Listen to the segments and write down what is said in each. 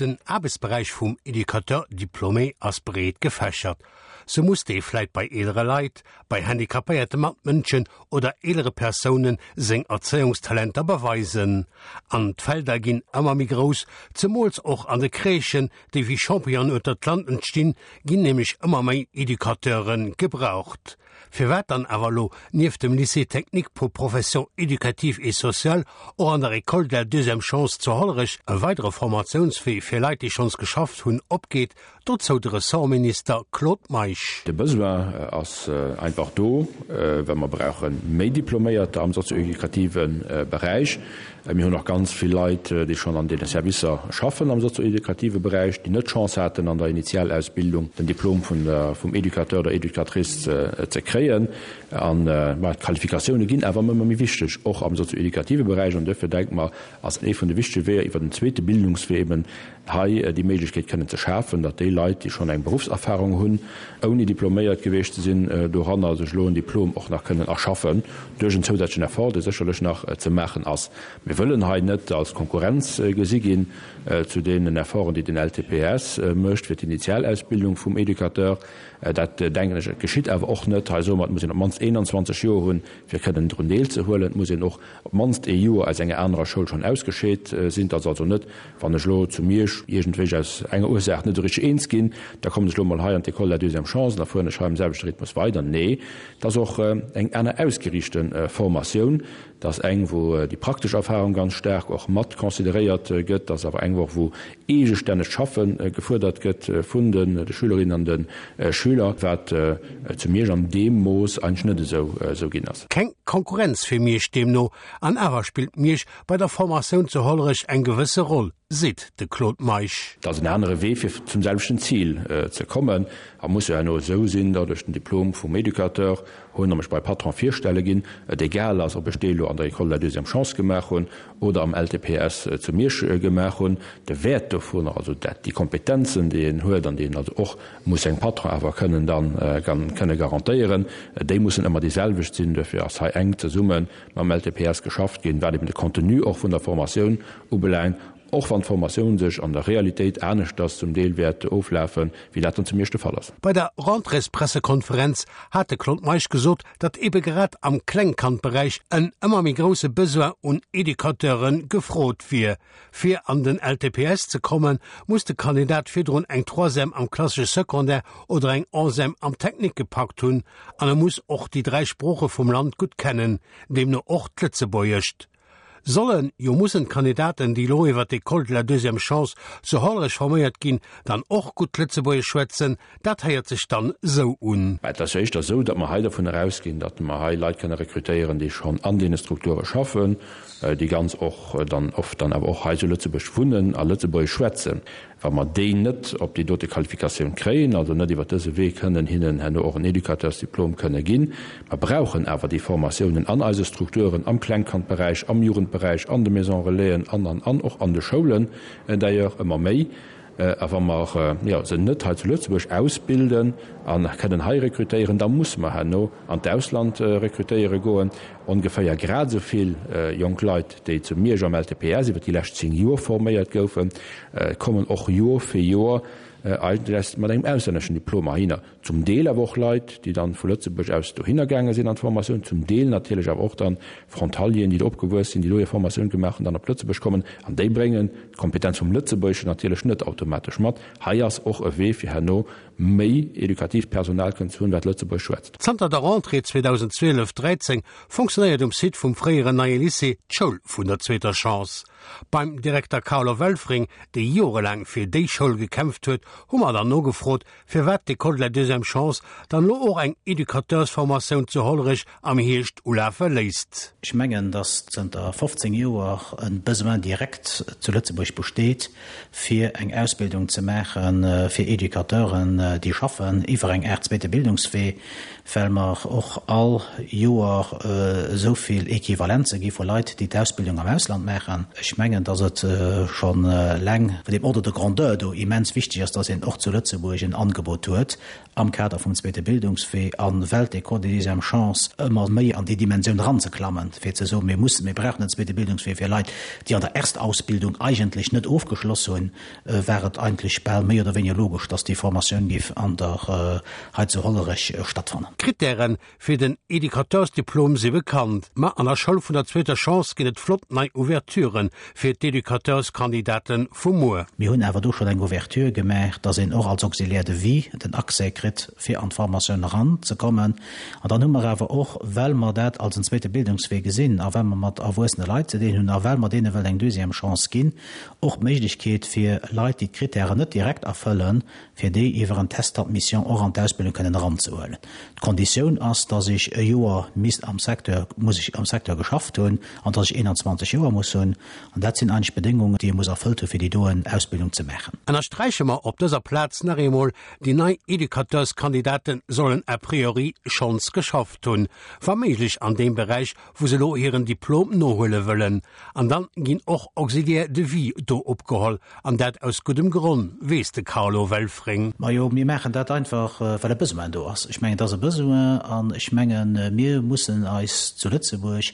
Den Aarbechtsberäich vum Educateur diplômé ass breet gefächert. Sou muss dee vläit bei eelere Leit, bei handicapéierte Matmënschen oder eelere Persounen seng Erzéiungstalenter beweisen. An d'Felder ginn ëmmer méi grouss, zemools och an de Crèchen, déi wéi Champignonen ueter d'Land entstinn, ginn nämlech ëmmer méi Educateure gebraucht. Firwat dann awer elo nieft dem Lycée technique pour professions éducatives et sociales och an der École de la deuxième chance zu Hollerech e weidere Formatiounswee fir Leit, déi schonns geschafft hunn, opgeet, dozou de Ressortminister Claude Meisch. De Besoin ass einfach do, well mer brauche méi Diploméierter am sozio-educative Beräich. Mir hunn och ganz vill Leit, déi schonn an deene Servicer schaffen am sozio-educative Beräich, déi net d'Chance haten, an der Initialausbildung den Diplom vun der, vum Educateur oder Educatrice ze kréien. An, ma d'Qualifikatioune ginn awer ëmmer méi wichteg, och am sozio-educative Beräich. An duerfir denke mer, ass ee vun de wichtege Weeër iwwer den zweete Bildungswee eben hei déi Méiglechkeet kënnen ze schafen, datt déi Leit, déi schonn eng Beruffserfahrung hunn, ouni diploméiert gewiescht ze sinn, doranner sech elo en Diplom och nach kënnen erschaffen, duerch en zousätzlechen Effort, dee sécherlech nach ze maachen ass. Mir wëllen hei net als Konkurrenz gesi ginn zu deenen Efforten, déi den LTPS mécht fir d'Initialausbildung vum Educateur. Dat, denken ech, geschitt awer och net. Hei soe mer, et muss een op d'mannst 21 Joer hunn, fir kënnen drun deelzehuelen. Et muss een och op d'mannst ee Joer aus enger anerer Schoul schonn ausgescheet sinn. Et ass also net, wann ech elo zu Miersch iergendwéi aus enger Ursaach net esou richteg eens ginn, da kommen ech elo mol hei an d'École de la deuxième chance an da fueren ech hei am selwechte Rhythmus weider. Nee, et ass och eng aner ausgeriichte Formatioun. Et ass eng, wou déi praktesch Erfahrung ganz staark och mat consideréiert gëtt. Et ass awer eng och, wou eegestännegt Schaffe gefuerdert gëtt vun de Schülerinnen an de Schüler, wat zu Miersch an deem Mooss eigentlech net esou ginn ass. Keng Konkurrenz fir Miersch deemno, an awer spillt Miersch bei der Formatioun zu Hollerech eng gewësse Roll, seet de Claude Meisch. Et ass en anere Wee fir zum selwechten Zil ze kommen a muss jo herno esou sinn, datt ech den Diplom vum Educateur hunn a mech bei Patron virstelle ginn, et egal ass, ob ech dee elo an der École de la deuxième chance gemaach hunn oder am LTPS zu Miersch gemaach hunn. De Wäert dovunner, also dat, déi Kompetenzen, déi een huet an déi een also och muss sengem Patron awer kënnen dann kënne garantéieren, déi mussen ëmmer déi selwecht sinn. Duerfir ass hei enk zesumme mam LTPS geschafft ginn, wat eben de Contenu och vun der Formatioun ubelaangt, och wann d'Formatioun sech an der Realitéit aneschters zum Deel wäert oflafen, wéi dat dann zu Miersch de Fall ass. Bei der Rentréespressekonferenz hat de Claude Meisch gesot, datt ebe grad am Klengkandberäich en ëmmer méi grousse Besoin un Educateure gefrot wier. Fir an den LTPS ze kommen, muss de Kandidat virdrun eng Troisième am klassesche Secondaire oder eng Onzième am Technique gepackt hunn an e muss och déi 3 Sprooche vum Land gutt kennen, deemno och d'Lëtzebuergescht. Sollen, jo mussen d'Kandidaten, déi elo iwwer d'École de la deuxième chance zu Hollerech forméiert ginn, dann och gutt Lëtzebuergesch schwätzen? Dat héiert sech dann esou un. Mä et ass jo éischter esou, datt mer hei dovun erausginn, datt mer hei Leit kënne rekrutéieren, déi schonn an deene Strukture schaffen, déi ganz och dann oft dann awer och hei zu Lëtzebuerg wunnen a Lëtzebuergesch schwätzen. Wa mer déi net op déi dote Qualifikatioun kréien, also net iwwert dëse Wee kënnen hinnen herno och en Educateursdiplom kënne ginn, mer brauchen awer déi Formatiounen an eise Strukturen, am Klengkandberäich, am Jugendberäich, an de Maisons Relaisen an, an, an och an de Schoulen d'ailleurs ëmmer méi. A wa mer, jo, se net hei zu Lëtzebuerg ausbilden a kënnen hei rekrutéieren, da musse mer herno an d'Ausland rekrutéiere goen. Ongeféier grad esou vill jonk Leit, déi zu Miersch am LTPS iwwer déi lescht 10 Joer forméiert goufen, kommen och Joer fir Joer eigentlech mat engem auslänneschen Diplom heihinner. Zum Deel awer och Leit, déi dann vu Lëtzebuerg aus dohinner gaange sinn an d'Formatioun, zum Deel natierlech awer och dann Frontalieren, déi do opgewuess sinn, déi do hir Formatioun gemaach hunn, dann op Lëtzebuerg kommen. An déi bréngen d'Kompetenz vum Lëtzebuergeschen natierlech net automatesch mat. Hei ass och e Wee fir herno méi edukatiivt Personal kënnen ze hunn, wat Lëtzebuergesch schwätzt. Zanter der Rentrée 2012, 13 fonctionnéiert um Site vum fréieren Neie Lycée d'Schoul vun der zweeter Chance. Beim Direkter Carlo Welfring, dee jorelaang fir déi Schoul gekämpft huet, hu mer dann nogefrot, firwat d'École de la deuxième chance dann elo och eng Educateursformatioun zu Hollerech am Hierscht ulafe léisst. Ech mengen, datt zënter 15 Joer e Besoin direct zu Lëtzebuerg besteet, fir eng Ausbildung ze maache fir Educateuren, déi schaffen iwwer eng Aart zweete Bildungswee, well mer och all Joer esou vill Equivalenze gi vu Leit, déi d'Ausbildung am Ausland maachen. Ech mengen, dass et scho laang vun deem Ordre de grandeur do immens wichteg ass, dass een och zu Lëtzebuerg en Angebot huet am Kader vum zweete Bildungswee a well d'École de deuxième chance ëmmer méi an déi Dimensioun eranzeklammen, fir ze soen, mir mussen, mir brauchen en zweete Bildungswee fir Leit, déi an der Erstausbildung eigentlech net ofgeschloss hunn, war et eigentlech bal méi oder wéiniger logesch, dass déi Formatioun géif an der hei zu Hollerech stattfannen. D'Krittären fir den Educateursdiplom si bekannt, ma an der Schoul vun der zweeter Chance ginn et flott nei Ouverturen fir d'Educateurskandidaten vu muer. Mir hunn awer do schonn eng Ouverture gemaach, dass een och als Auxiliaire de vie den Accès kritt, fir an d'Formatioun eran ze kommen. An dann hu mer awer och, well mer dat als en zweete Bildungswee gesinn a well mer mat erwuessene Leit ze dinn hunn a well mer deene wëllen eng deuxième Chance ginn, och d'Méiglechkeet fir Leit, déi d'Kritären net direkt erfëllen, fir déi iwwer en Test d'admission och an d'Ausbildung kënnen eranzehuelen. D'Konditioun ass, dass ech e Joer misst am Secteur, muss ech am Secteur geschafft hunn an dass ech 21 Joer muss hunn. An dat sinn eigentlech d'Bedéngungen, déi ee muss erfëllt hu fir déi doen Ausbildung ze maachen. Ënnersträiche mer op dëser Plaz nach eemol, déi nei Educateurskandidaten sollen a priori schonns geschafft hunn, wa méiglech an deem Beräich, wou se elo hiren Diplom nohuele wëllen. An dann ginn och Auxiliaires de vie do opgeholl, an dat aus guddem Gronn, weess de Carlo Welfring. Majo, mir maachen dat einfach, well e Besoin do ass. Ech mengen, et ass e Besoin an ech mengen, mir mussen eis zu Lëtzebuerg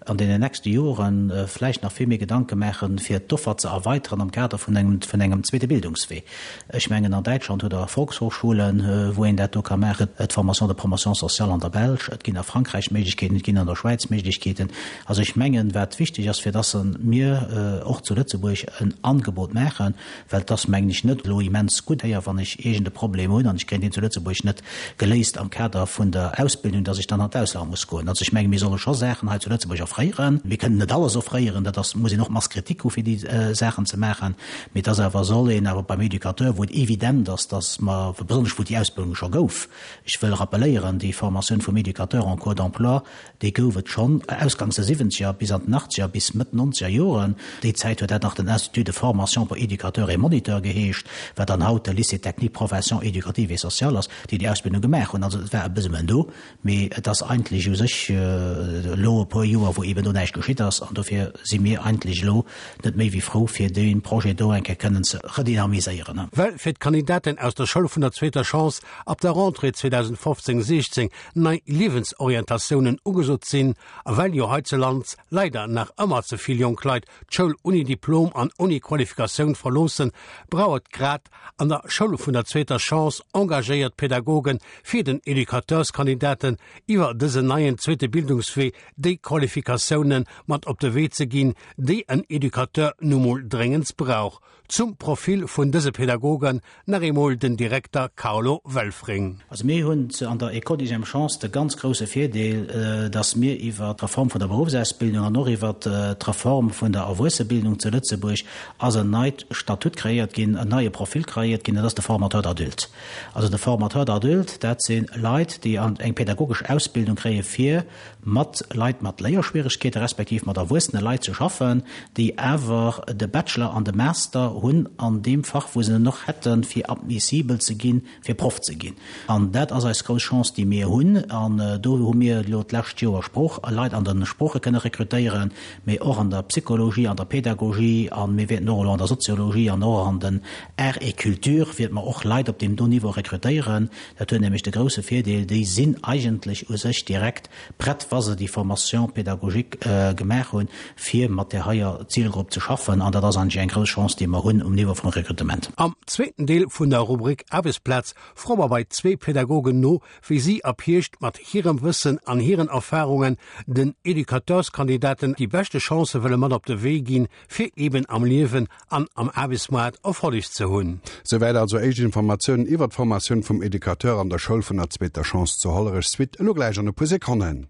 an deenen nächste Jore vläicht nach vill méi Gedanke maachen, fir d'Offer ze erweiteren am Kader vun engem, vun engem zweete Bildungswee. Ech mengen, an Däitschland hutt Der Volkshochschulen, wou een dat do ka maachen, d'Formation de promotion sociale an der Belsch, et ginn a Frankräich Méiglechkeeten, et ginn an der Schwäiz Méiglechkeeten. Also ech mengen, wat wichteg ass, fir dass mir och zu Lëtzebuerg en Angebot maachen, well et ass, mengen ech, net elo immens gutt héier, wann ech iergend e Problem hunn an ech kréien deen zu Lëtzebuerg net geléist am Kader vun der Ausbildung, dass ech dann an d'Ausland muss goen. Also ech mengen, mir solle scho Saachen hei zu Lëtzebuerg offréieren. Mir kënnen net alles offréieren, dat ass, muss een och Masse critique hu fir déi Saachen ze maachen, mee et ass awer, soll een awer beim Éducateur, wou et evident ass, dass mer, besonnesch wou déi Ausbildung scho gouf, ech wëll rappeléieren, déi Formatioun vum Éducateur en cours d'emploi, Déi gouf et schonn ausgangs der siwwenzeger bis an den achtzeger bis Mëtt nonzeger Joren. Déi Zäit huet dat nach den Institut de formation pour éducateurs et moniteurs geheescht, wat dann haut de Lycée technique professions éducatives et sociales ass, déi déi Ausbildung gemaach hunn. Also et war e Besoin do, mee et ass eigentlech u sech elo e puer Joer, wou eeben do näischt geschitt ass. An dofir si mir eigentlech elo net méi wéi frou, fir dee Projet do eng Kéier kënnen ze redynamiséieren. Well fir d'Kandidaten aus der Schoul vun der zweeter Chance ab der Rentrée 2015, 16 nei Liewensorientatiounen ugesot sinn a well jo heizelands leider nach ëmmer ze vill jonk Leit d'Schoul unni Diplom an unni Qualifikatioun verloossen, brauch et grad an der Schoul vun der zweeter Chance engagéiert Pädagogen, fir den Educateurskandidaten iwwer dësen neien zweete Bildungswee déi Qualifikatiounen mat op de Wee ze ginn, déi en Educateur nu mol dréngendst brauch. Zum Profil vun dëse Pädagogen nach eemol den Direkter Carlo Welfring. Also mir hunn an der École Deuxième Chance de ganz grouse Virdeel, dass mir iwwer d'Reform vun der Beruffsausbildung an och iwwer d'Reform vun der Erwuessebildung zu Lëtzebuerg ass en neit Statut kreéiert ginn, en neie Profil kreéiert ginn, dat ass de Formateur d'adulte. Also de Formateur d'adulte, dat si Leit, déi eng pädagogesch Ausbildung kréie fir mat Leit mat Léierschwieregkeete respektiv mat erwuessene Leit ze schaffen, déi awer de Bachelor an de Master hunn an deem Fach, wou se en och hätten, fir admissibel ze ginn, fir Proff ze ginn. An dat ass eis grouss Chance, déi mir hunn. An do hu mir elo d'lescht Joer Sprooch, Leit an de Sprooche kënne rekrutéieren, mee och an der Psychologie, an der Pädagogie a mir wäerten och elo an der Soziologie an och an den Arts et Cultures wäerte mer och Leit op deem do Niveau rekrutéieren. Dat huet nämlech de grouse Virdeel, déi sinn eigentlech u sech direkt prett, wa se déi Formation pédagogique gemaach hunn, fir mat där heier Zilgrupp ze schaffen. An dat ass eigentlech eng grouss Chance, déi mer hunn um Niveau vum Rekrutement. Am zweeten Deel vun der Rubrik Aarbechtsplaz froe mer bei zwee Pädagogen no, wéi si ab Hierscht mat hirem Wëssen an hiren Erfarungen den Educateurskandidaten déi beschte Chancë wëlle mat op de Wee ginn, fir eben am Liewen an am Aarbechtsmoart Erfolleg ze hunn. Souwäit also éischt Informatiounen iwwert d'Formatioun vum Educateur an der Schoul vun der zweeter Chance zu Hollerech. Suite elo gläich an e puer Sekonnen.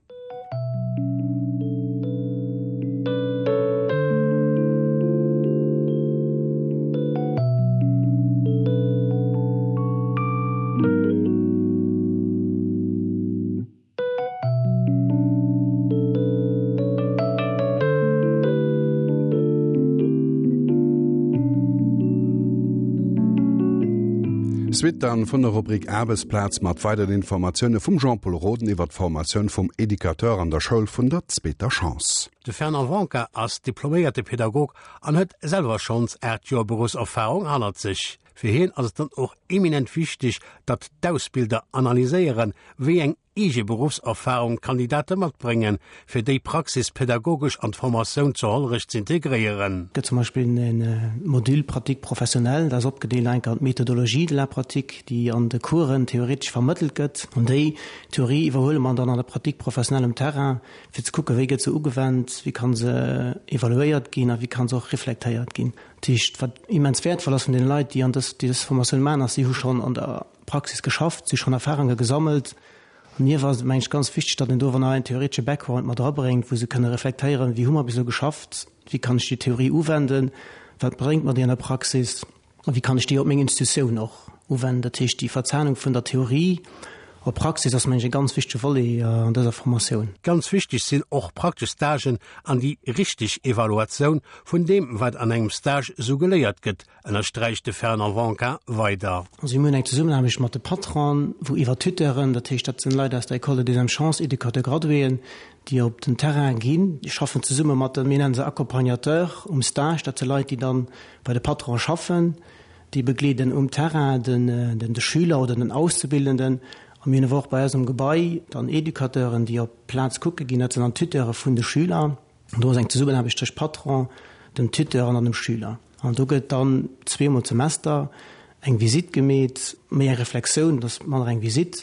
Suite dann vun der Rubrik Aarbechtsplaz mat weideren Informatioune vum Jean-Pol Roden iwwer d'Formatioun vum Educateur an der Schoul vun der zweeter Chance. De Fernand Wanka ass diploméierte Pädagog an huet selwer schonns 8 Joer Beruffserfarung hannert sech. Fir hien ass et dann och eminent wichteg, datt d'Ausbilder analyséieren, wéi eng eege Beruffserfarung d'Kandidate matbréngen, fir déi Praxis pädagogesch an d'Formatioun zu Hollerech z'integréieren. Et gëtt zum Beispill e Module pratique professionnelle, dat ass opgedeelt enk an d'Méthodologie de la pratique, déi an de Coursen theoretesch vermëttelt gëtt. An déi Theorie iwwerhuele mer dann an der Pratique professionnelle um Terrain, fir ze kucken, wéi gëtt se ugewennt, wéi ka se evaluéiert ginn a wéi ka se och reflektéiert ginn. Dat heescht, wat immens wäertvoll ass vun deene Leit, déi an dës, déi dës Formatioun maachen, ass, si hu schonn an der Praxis geschafft, si hu schonn Erfahrunge gesammelt. An hir war et, meng ech, ganz wichteg, datt een do awer nach en theoretesche Background mat erabréngt, wou se kënne reflektéieren, wéi hu mer bis elo geschafft, wéi kann ech déi Theorie uwenden, wat bréngt mer déi an der Praxis a wéi kann ech déi op meng Institutioun och uwenden. Dat heescht, déi Verzahnung vun der Theorie op Praxis ass, meng ech, e ganz wichtege Volet an dëser Formatioun. Ganz wichteg sinn och praktesch Stagen an déi richteg Evaluatioun vun deem, wat an engem Stage esou geléiert gëtt, ënnersträicht de Fernand Wanka weider. Also mir hunn eng Zesummenaarbecht mat de Patronen, wou iwwer Tuteuren, dat heescht dat sinn Leit aus der École de deuxième chance, Éducateurs graduéen, déi op den Terrain ginn, déi schaffen zesumme mat de, mir nennen se Accompagnateurs um Stage, dat si Leit, déi dann bei de Patronen schaffen, déi begleeden um Terrain den de Schüler oder den Auszubildenden. A mir hunn awer och bei eis um Gebai dann Éducateuren, déi op d'Plaz kucke ginn, dat sinn dann d'Tuteure vun de Schüler. Do ass eng Zesummenaarbecht tëscht Patron, dem Tuteur an dann dem Schüler. An do gëtt dann zweemol d'Semester eng Visitt gemeet, méi eng Reflexioun, dat ass manner eng Visitt,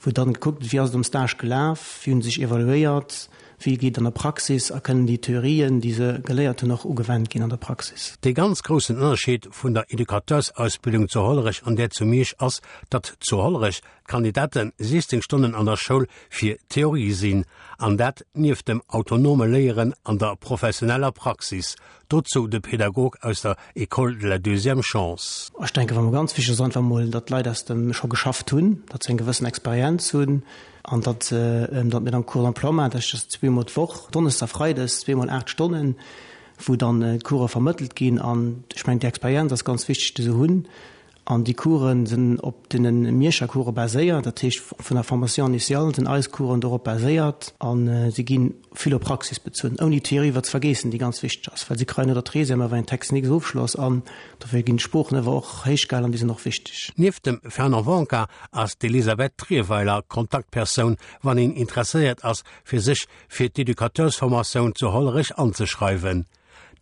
wou dann gekuckt gëtt, wéi ass et am Stage gelaf, wéi hunn se sech evaluéiert, wéi geet et an der Praxis a kënnen déi Theorien, déi se geléiert hunn, och ugewennt ginn an der Praxis. Dee ganz groussen Ënnerscheed vun der Educateursausbildung zu Hollerech an där zu Miersch ass, datt zu Hollerech D'Kandidate 16 Stonnen an der Schoul fir Theorie sinn, an dat nieft dem autonome Léieren an der professioneller Praxis. Dozou de Pädagog aus der École de la deuxième chance. Ech denken, wat mer ganz wichteg ass, einfach emol, datt d'Leit aus dem scho geschafft hunn, datt se eng gewëssen Experienz hunn an datt se, datt mir dann Cours d'emploi maachen, dat heescht, dat ass zweemol d'Woch, donneschdes a freides, zweemol 8 Stonnen, wou dann d'Course vermëttelt ginn. An ech mengen, déi Experienz ass ganz wichteg, déi se hunn. An déi Coursen sinn op deene Mierscher Course baséiert, dat heescht vun der Formation initiale sinn eis Coursen dorop baséiert a si gi vill op Praxis bezunn, ouni d'Theorie iwwer ze vergeessen, déi ganz wichteg ass, well si kréien no der Treizième awer en Techniques-Ofschloss an dofir ginn d'Sproochen awer och héich gehalen an déi sinn och wichteg. Nieft dem Fernand Wonka ass d'Elisabeth Trierweiler Kontaktpersoun, wann een interesséiert ass, fir sech fir d'Educateursformatioun zu Hollerech anzeschreiwen.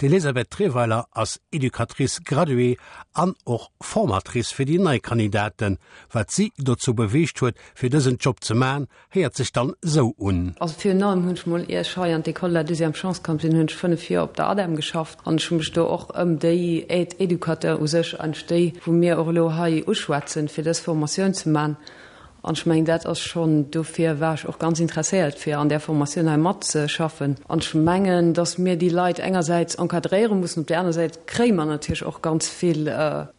D'Elisabeth Trierweiler ass Educatrice graduée an och Formatrice fir déi nei Kandidaten. Wat si dozou beweegt huet, fir dësen Job ze man, héiert sech dann sou un. Also virun allem hunn ech mol, ier ech hei an d'École de la deuxième chance komm sinn, hunn ech 5 Joer op der ADEM geschafft an ech hu mech do och ëm déi Aide-éducateur u sech, eigentlech déi, wou mir och elo hei uschwätzen, fir dës Formatioun ze man. An ech mengen, dat ass schonn, dofir war ech och ganz interesséiert, fir an där Formatioun hei matzeschaffen. An ech mengen, datt mir déi Leit engersäits encadréiere mussen, op där aner Säit kréie mer natierlech och ganz vill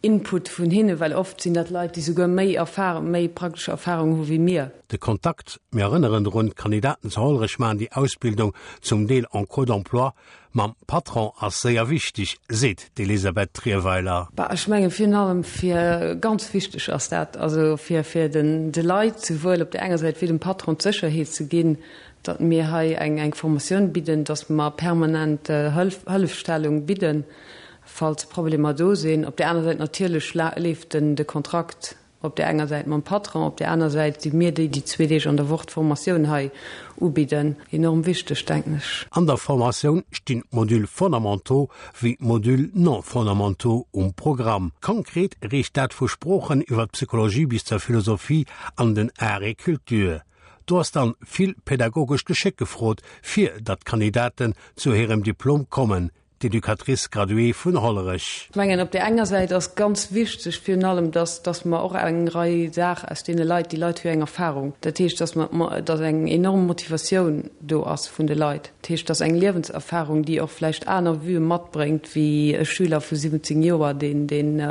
Input vun hinnen, well oft sinn dat Leit, déi souguer méi Erfahrung, méi praktesch Erfahrung hu wéi mir. De Kontakt, mir erënneren drun, d'Kandidaten zu Hollerech maachen déi Ausbildung zum Deel en cours d'emploi, Mam Patron ass séier wichteg, seet d'Elisabeth Trierweiler. Bah, ech mengen virun allem fir, ganz wichteg ass dat, also fir fir den de Leit souwuel op där enger Säit wéi dem Patron d'Sécherheet ze ginn, datt mir hei eng eng Formatioun bidden, datt mer permanent Hëlf Hëllefstellung bidden, falls Problemer do sinn. Op där aner Säit natierlech leeft den de Kontrakt Op där enger Säit mam Patron, op där aner Säit si mir déi, déi zwee Deeg an der Woch d'Formatioun hei ubidden. Enorm wichteg, denken ech. An der Formatioun stinn d'Modules fondamentaux wéi d'Modules non fondamentaux um Programm. Konkret reecht dat vu Sproochen iwwer d'Psychologie bis zur Philosophie an den Arts et Cultures. Do ass dann vill pädagogescht Geschéck gefrot, fir datt d'Kandidaten zu hirem Diplom kommen. d'Educatrice graduée vun Hollerech. Ech mengen, op där enger Säit ass ganz wichteg virun allem, dass, dass mer och eng Rei Saach aus deene Leit, déi Leit hu jo eng Erfahrung, dat heescht, dass mer, dass eng enorm Motivatioun do ass vun de Leit, dat heescht, dass eng Liewenserfahrung, déi och vläicht aner Vuë matbréngt wéi e Schüler vu 17 Joer, deen, deen,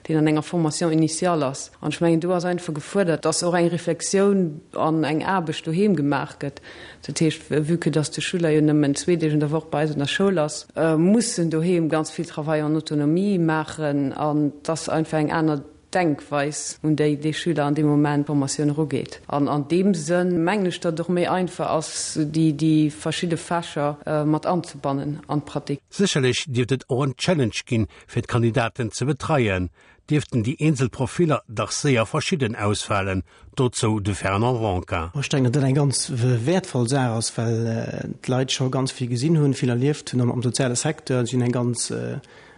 deen an enger Formation initiale ass. An ech mengen, do ass einfach gefuerdert, dass och eng Reflexioun an eng Aarbecht doheem gemaach gëtt, Dat heescht, vue que dass de Schüler jo nëmmen zwee Deeg an der Woch bei eis an der Schoul ass, muss en doheem ganz vill Travail en autonomie maachen an et ass einfach eng aner. Denkweis, un déi dee Schüler an deem Moment d'Formatioun erugeet. An an deem Sënn mengen ech, datt et och méi einfach ass, déi déi verschidde Fächer mat anzebannen an d'Pratique. Sécherlech dierft et och en Challenge ginn, fir d'Kandidaten ze betreien, dierften déi eenzel Profiller dach séier verschidden ausfalen, dozou de Fernand Ronca. Ech denken, datt dat eng ganz wäertvoll Saach ass, well d'Leit scho ganz vill gesinn hunn, vill erlieft hunn am soziale Secteur. Si hunn eng ganz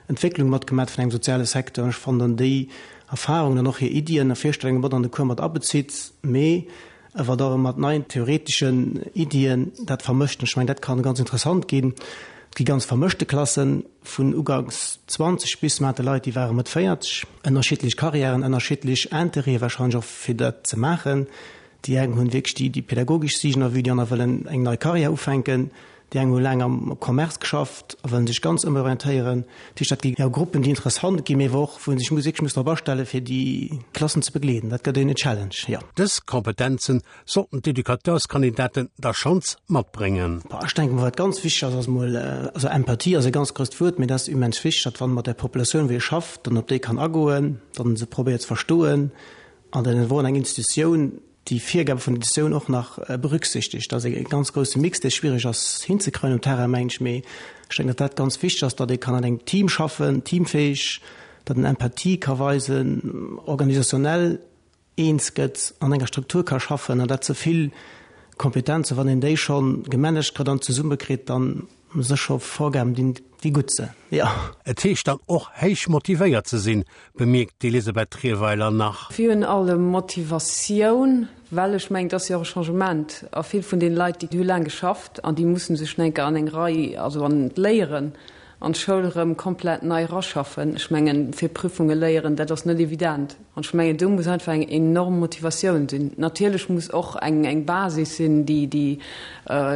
Entwécklung matgemat vun engem soziale Secteur. An ech fannen dann déi Erfahrungen an och hir Iddien a Virstellunge mat an de Cours mat abezitt, mee awer da mat neien theoreteschen Iddien dat vermëscht. An ech mengen, dat kann ganz interessant ginn. Et gi ganz vermëschte Klassen, vun uganks 20 bis mer hate Leit, déi ware Mëtt 40, ënnerschiddlech Karriären, ënnerschiddlech Interêtë warscheinlech och fir dat ze maachen. Déi eng hunn wierklech déi pädagogesch Siicht en vue, déi aner wëllen eng nei Karriär ufänken. Déi eng hu laang am Commerce geschafft a wëllen sech ganz ëmorientéieren. Dat heescht, dat gi jo Gruppen, déi interessant ginn, mee wou och, wou ee sech muss wierklech muss drop astellen, fir déi Klassen ze begleeden. Dat gëtt een Challenge, jo. Dës Kompetenzen sollten d'Educateurskandidaten da schonns matbréngen. Bon, ech denken, wat ganz wichteg ass, ass emol, also Empathie ass e ganz grousst Wuert, mee dat ass immens wichteg, datt wann ee mat der Populatioun, wou ee schafft, dann op déi kann agoen, datt en se probéiert ze verstoen an datt een wou an eng Institutioun déi Virgabe vun der Editioun och nach berücksichtegt. Dat ass e ganz grousse Mix, dee schwierig ass hinzekreien um Terrain, mengen ech. Mee ech denken, datt dat ganz wichteg ass, datt ee kann an engem Team schaffen, teamfähig, datt en Empathie ka weisen, organisationnel eens gëtt, an enger Struktur ka schaffen. An dat se vill Kompetenzen, wann een déi scho gemanagt kritt an zesummekritt, dann Sécher Vorgaben dinn, déi gutt sinn, jo. Et heescht dann och héich motivéiert ze sinn, bemierkt d'Elisabeth Trierweiler nach. Virun allem Motivatioun, well ech mengen, et ass jo och e Changement a vill vun deene Leit, déi hu laang geschafft an déi musse sech nach eng Kéier an eng Rei, also an d'Léieren, an d'Schoul erëm komplett nei eraschaffen. Ech mengen, fir Prüfunge léieren, dat ass net evident. An ech mengen, do muss einfach eng enorm Motivatioun sinn. Natierlech muss och eng, eng Basis sinn, déi, déi,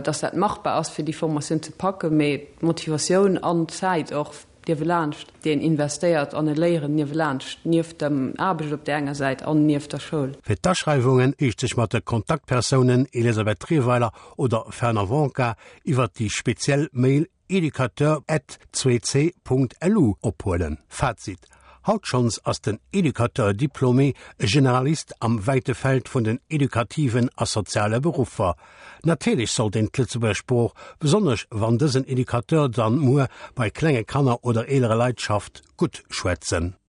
dass dat machbar ass, fir déi Formatioun ze packen, mee d'Motivatioun an d'Zäit och niewelaanscht, déi een investéiert an e Léieren niewelaanscht, nieft dem Aarbecht op där enger Säit an nieft der Schoul. Fir d'Aschreiwungen heescht sech mat de Kontaktpersounen Elisabeth Trierweiler oder Fernand Wonka iwwert déi speziell Mail Educateur at 2c.lu ophuelen. Fazit, Haut schonns ass den Educateur diplômé e Generalist am wäite Feld vun den edukativen a soziale Beruffer. Natierlech sollt een d'Lëtzebuerger Sprooch, besonnesch wann dësen Educateur dann muer bei klenge Kanner oder eelere Leit schafft, gutt schwätzen.